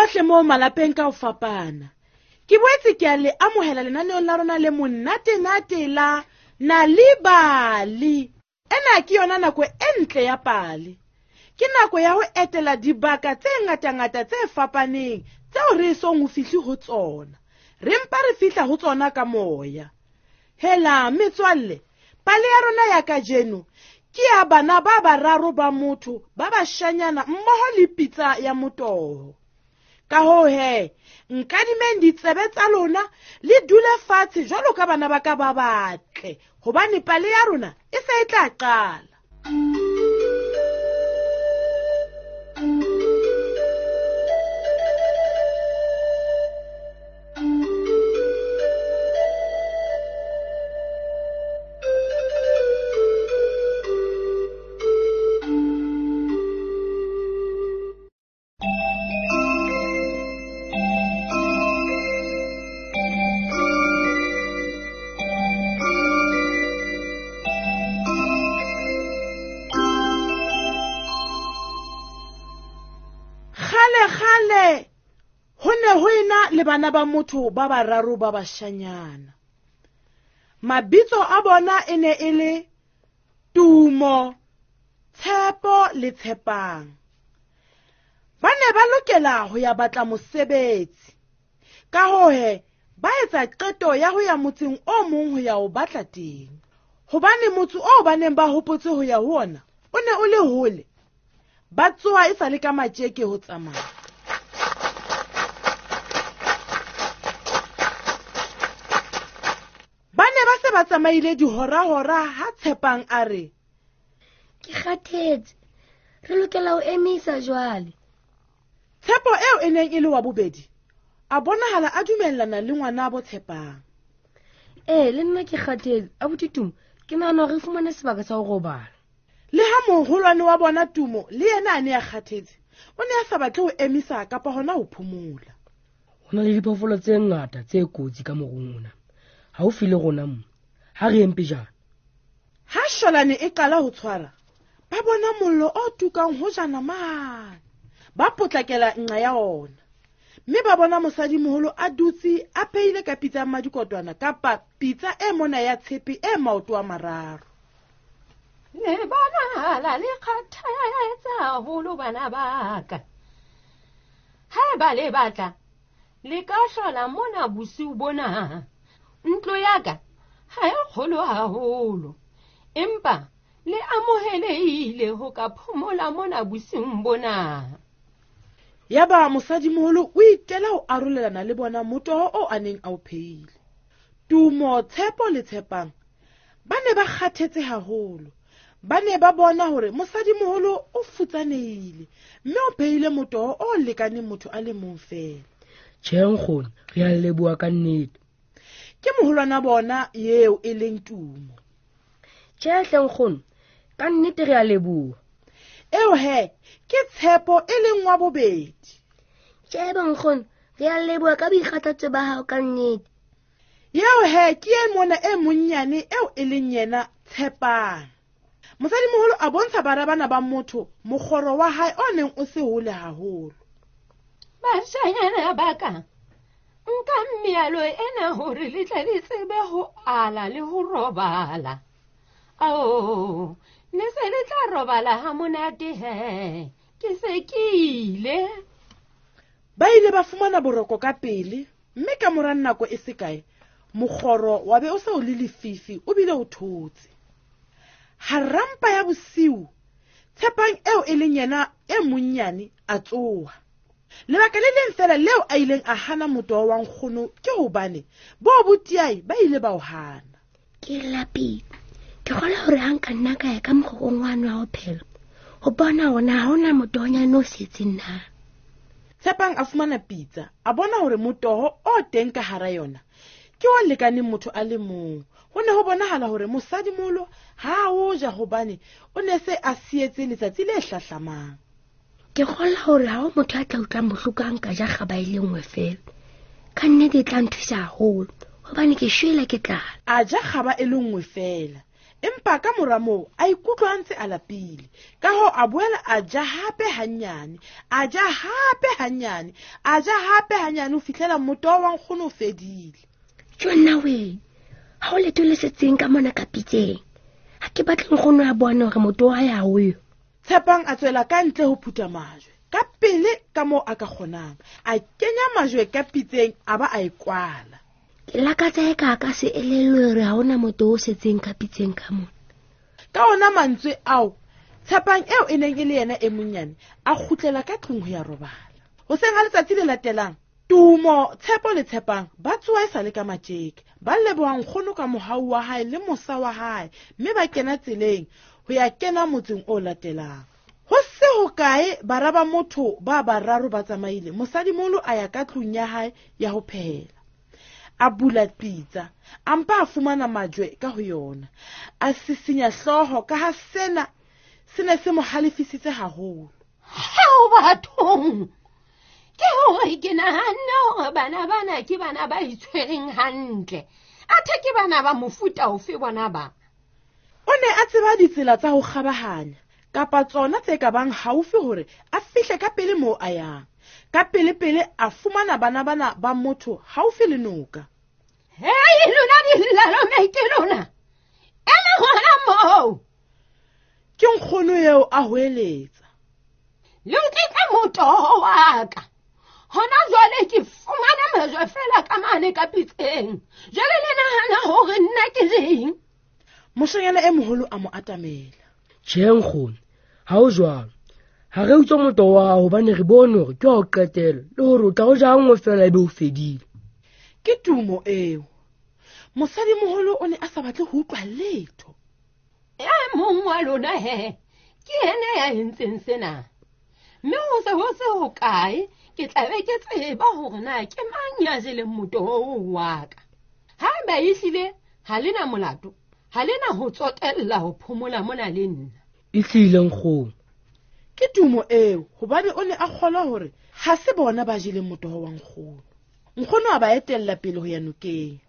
bohle moo malapeng ka ho fapana. Ke boetse ke a le amohela lenaneong la rona le monate-nate la Nal'ibali. Ena ke yona nako e ntle ya pale. Ke nako ya ho etela dibaka tse ngatangata tse fapaneng tseo re esong ho fihle ho tsona. Re mpa re fihla ho tsona ka moya. Hela, metswalle, pale ya rona ya kajeno ke ya bana ba bararo ba motho ba bashanyana mmoho le pitsa ya motoho. Ka hoo he, nkadimeng ditsebe tsa lona le dule fatshe jwalo ka bana ba ka ba batle, hobane pale ya rona e se e tla qala. Kgale-kgale ho ne ho ena le bana ba motho ba bararo ba bashanyana. Mabitso a bona e ne e le Tumo, Tshepo le Tshepang. Ba ne ba lokela ho ya batla mosebetsi. Ka hoo he, ba etsa qeto ya ho ya motseng o mong ho ya o batla teng. Hobane motse oo ba neng ba hopotse ho ya ho ona o ne o le hole, ba tsoha e sa le ka matjeke ho tsamaya. Ba ne ba se ba tsamaile dihora-hora ha Tshepang a re, Ke kgathetse, re lokela ho emisa jwale. Tshepo eo e neng e le wa bobedi a bonahala a dumellana le ngwanabo Tshepang. Ee, le nna ke kgathetse, abuti Tumo, ke nahana hore re fumane sebaka sa ho robala. Le ha moholwane wa bona Tumo le yena a ne a kgathetse, o ne a sa batle ho emisa kapa hona ho phomola. Ho na le diphoofolo tse ngata tse kotsi ka morung ona, haufi le rona mo. Ha re yeng pejana. Ha sholane e qala ho tshwara, ba bona mollo o tukang hojana mane. Ba potlakela nqa ya ona, mme ba bona mosadimoholo a dutse a phehile ka pitsa ya mmadikotwana kapa pitsa e mona ya tshepe e maoto a mararo. Le bonahala le kgathetse haholo bana ba ka. Haeba le batla, le ka hlola mona bosiu bona. Ntlo ya ka ha e kgolo haholo, empa le amohelehile ho ka phomola mona bosiung bona. Yaba mosadimoholo o itela ho arolelana le bona motoho oo a neng a o phehile. Tumo, Tshepo le Tshepang ba ne ba kgathetse haholo. Ba ne ba bona hore mosadimoholo o futsanehile mme o phehile motoho o lekaneng motho a le mong feela. Tjhe, nkgono, re a leboha ka nnete. Ke moholwana bona eo e leng Tumo. Tjhe, hle nkgono, ka nnete re a leboha. Eo he, ke Tshepo e leng wa bobedi. Tjhe, bonkgono, re a leboha ka boikgathatso ba hao ka nnete. Eo he, ke e mona e monnyane eo e leng yena Tshepang. Mosadimoholo a bontsha bara bana ba motho mokgoro wa hae o neng o se hole haholo. Bashanyana ba ka, nka mealo ena hore le tle le tsebe ho ala le ho robala. Ao, le se le tla robala ha monate he, ke se ke ile. Ba ile ba fumana boroko ka pele, mme ka mora nako e se kae, mokgoro wa be o se o le lefifi o bile o thotse. Harampa ya bosiu, Tshepang eo e leng yena e monnyane a tsoha. Lebaka le leng feela leo a ileng a hana motoho wa nkgono ke hobane bo botiai ba ile ba o hana. Ke lapile. Ke kgolwa hore ha nka nna ka ya ka mokgokong wane wa ho phela, ho bona hore na ha hona motohonyane o setseng na. Tshepang a fumana pitsa, a bona hore motoho o teng ka hara yona ke o lekaneng motho a le mong. Ho ne ho bonahala hore mosadimoholo ha a o ja hobane o ne se a sietse letsatsi le hlahlamang. Ke kgolwa hore ha ho motho a tla utlwang bohloko ha nka ja kgaba e le nngwe feela. Ka nnete e tla nthusa haholo hobane ke shwele ke tlala. A ja kgaba e le nngwe feela. Empa ka mora moo a ikutlwa a ntse a lapile. Ka hoo a boela a ja hape hanyane, a ja hape hanyane, a ja hape hanyane ho fihlela motoho wa nkgono o fedile. Jonna we, ha o letho le setseng ka mona ka pitseng. Ha ke batle nkgono a bone hore motoho wa hae ha o yo. Tshepang a tswela ka ntle ho phutha majwe ka pele ka moo a ka kgonang. A kenya majwe ka pitseng a ba a e kwala. Ke lakatsa e ka ka se elellwe hore ha hona motoho o setseng ka pitseng ka mona. Ka ona mantswe ao, Tshepang eo e neng e le yena e monyane a kgutlela ka tlung ho ya robala. Hoseng ha letsatsi le latelang, Tumo, Tshepo le Tshepang ba tsoha e sa le ka matjeke. Ba leboha nkgono ka mohau wa hae le mosa wa hae, mme ba kena tseleng ho ya kena motseng o latelang. Ho se hokae bara ba motho ba bararo ba tsamaile, mosadimoholo a ya ka tlung ya hae ya ho phehela. A bula pitsa, a mpa a fumana majwe ka ho yona. A sisinya hlooho ka ha sena se ne se mo halefisitse haholo. Hao bathong! Ke hore ke nahanne hore bana bana ke bana ba itshwereng hantle. Athe ke bana ba mofuta ofe bona ba? O ne a tseba ditsela tsa ho kgabahanya kapa tsona tse ka bang haufi hore a fihle ka pele moo a yang. Ka pele-pele a fumana bana bana ba motho haufi le noka. Hei, lona dillalome ke lona. Ema hona moo. Ke nkgono eo a hoeletsa. Le utlwitse motoho wa ka. Hona jwale ke fumana majwe feela ka mane ka pitseng. Jwale le nahana hore nna ke reng? Moshanyana e moholo a mo atamela. Tjhe nkgono, ha ho jwalo. Ha re utswa motoho wa hao hobane re bone hore ke wa ho qetela le hore o tla o ja nngwe feela ebe o fedile. Ke tumo eo. Mosadimoholo o ne a sa batle ho utlwa letho. E mong wa lona he, ke yena ya entseng sena. Mme ho se ho se hokae, ke tla be ke tseba hore na ke mang ya jeleng motoho wa ka. Haeba ehlile ha le na molato, ha le na ho tsotella ho phomola mona le nna. Ehlile nkgono. Ke tumo eo, hobane o ne a kgolwa hore ha se bona ba jeleng motoho wa nkgono. Nkgono a ba etella pele ho ya nokeng.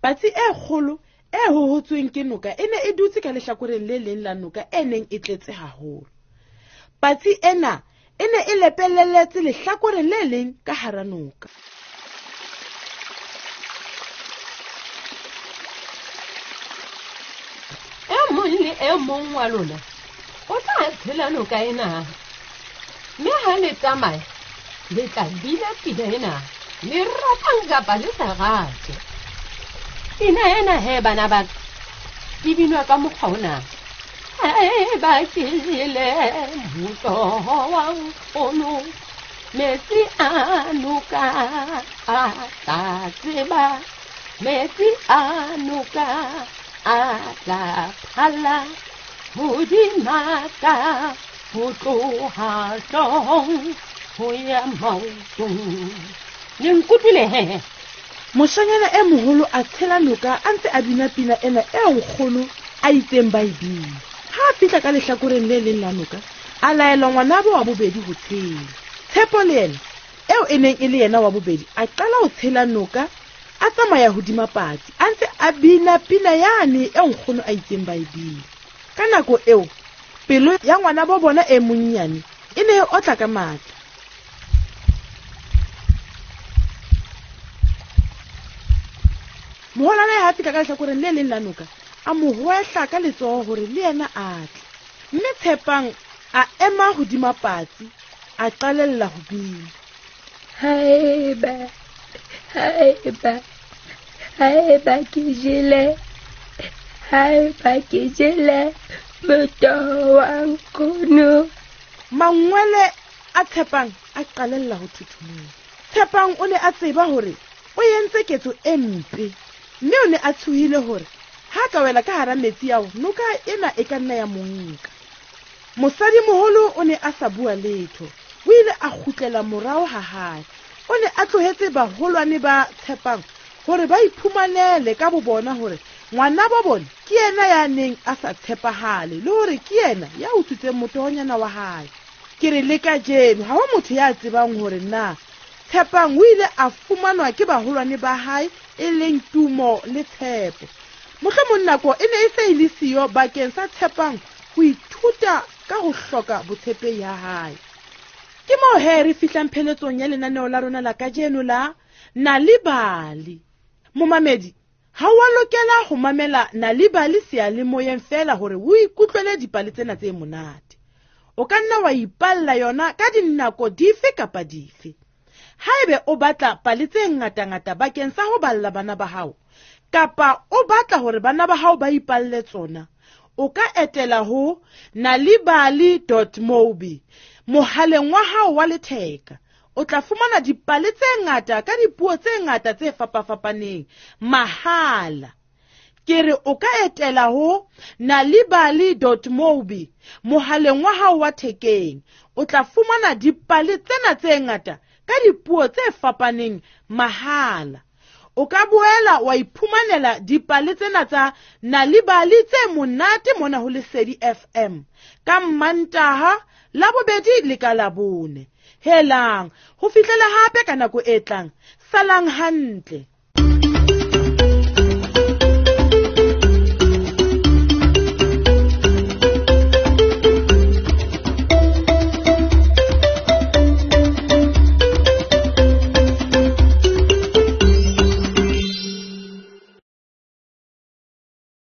Patsi e kgolo e hohotsweng ke noka e ne e dutse ka lehlakoreng le leng la noka e neng e tletse haholo. Patsi ena e ne e lepeleletse lehlakoreng le leng ka hara noka. E mong le e mong wa lona o tla tshela noka ena. Mme ha le tsamaya, le tla bina pina ena, le ratang kapa le sa rate. Pina ena he bana ba ka, e binwa ka mokgwa ona. Haeba ke jele motoho wa nkgono, metsi a noka a tla tseba, metsi a noka a tla phalla hodima ka ho tloha hloohong ho ya maotong. Le nkutlwile he? Moshanyana e moholo a tshela noka a ntse a bina pina ena eo nkgono a itseng ba e bina. Ha a fihla ka lehlakoreng le leng la noka, a laela ngwanabo wa bobedi ho tshela. Tshepo le yena, eo e neng e le yena wa bobedi, a qala ho tshela noka, a tsamaya hodima patsi, a ntse a bina pina yane eo nkgono a itseng ba e bina. Ka nako eo, pelo ya ngwanabo bona e monnyane e ne e otla ka matla. Moholwane ha fihla ka lehlakoreng le leng la noka, a mo hwehla ka letsoho hore le yena a tle. Mme Tshepang a ema hodima patsi, a qalella ho bina. Haeba, haeba, haeba ke jele, haeba ke jele motoho wa nkgono. Mangwele a Tshepang a qalella ho thothomela. Tshepang o ne a tseba hore o entse ketso e mpe, mme o ne a tshohile hore ha ka wela ka hara metsi ao, noka ena e ka nna ya mo nka. Mosadimoholo o ne a sa bua letho, o ile a kgutlela morao ha hae. O ne a tlohetse baholwane ba Tshepang hore ba iphumanele ka bo bona hore ngwanabo bona ke yena ya neng a sa tshepahale le hore ke yena ya utswitseng motohonyana wa hae. Ke re le kajeno ha ho motho ya tsebang hore na Tshepang o ile a fumanwa ke baholwane ba hae e leng Tumo le Tshepo. Mohlomong nako e ne e se e le siyo bakeng sa Tshepang ho ithuta ka ho hloka botshepehi ha hae. Ke moo he re fihlang pheletsong ya lenaneo la rona la kajeno la Nal'ibali. Momamedi, ha wa lokela ho mamela Nal'ibali seyalemoyeng feela hore o ikutlwele dipale tsena tse monate. O ka nna wa ipalla yona ka dinako dife kapa dife. Haebe o batla pale tse ngatangata bakeng sa ho balla bana ba hao, kapa o batla hore bana ba hao ba ipalle tsona, o ka etela ho nalibali.mobi mohaleng wa hao wa letheka. O tla fumana dipale tse ngata ka dipuo tse ngata tse fapafapaneng mahala. Ke re o ka etela ho nalibali.mobi mohaleng wa hao wa thekeng. O tla fumana dipale tsena tse ngata ka dipuo tse fapaneng mahala. O ka boela wa iphumanela dipale tsena tsa Nal'ibali tse monate mona ho Lesedi FM ka Mmantaha, Labobedi le ka Labone. Helang, ho fihlela hape ka nako e tlang. Salang hantle.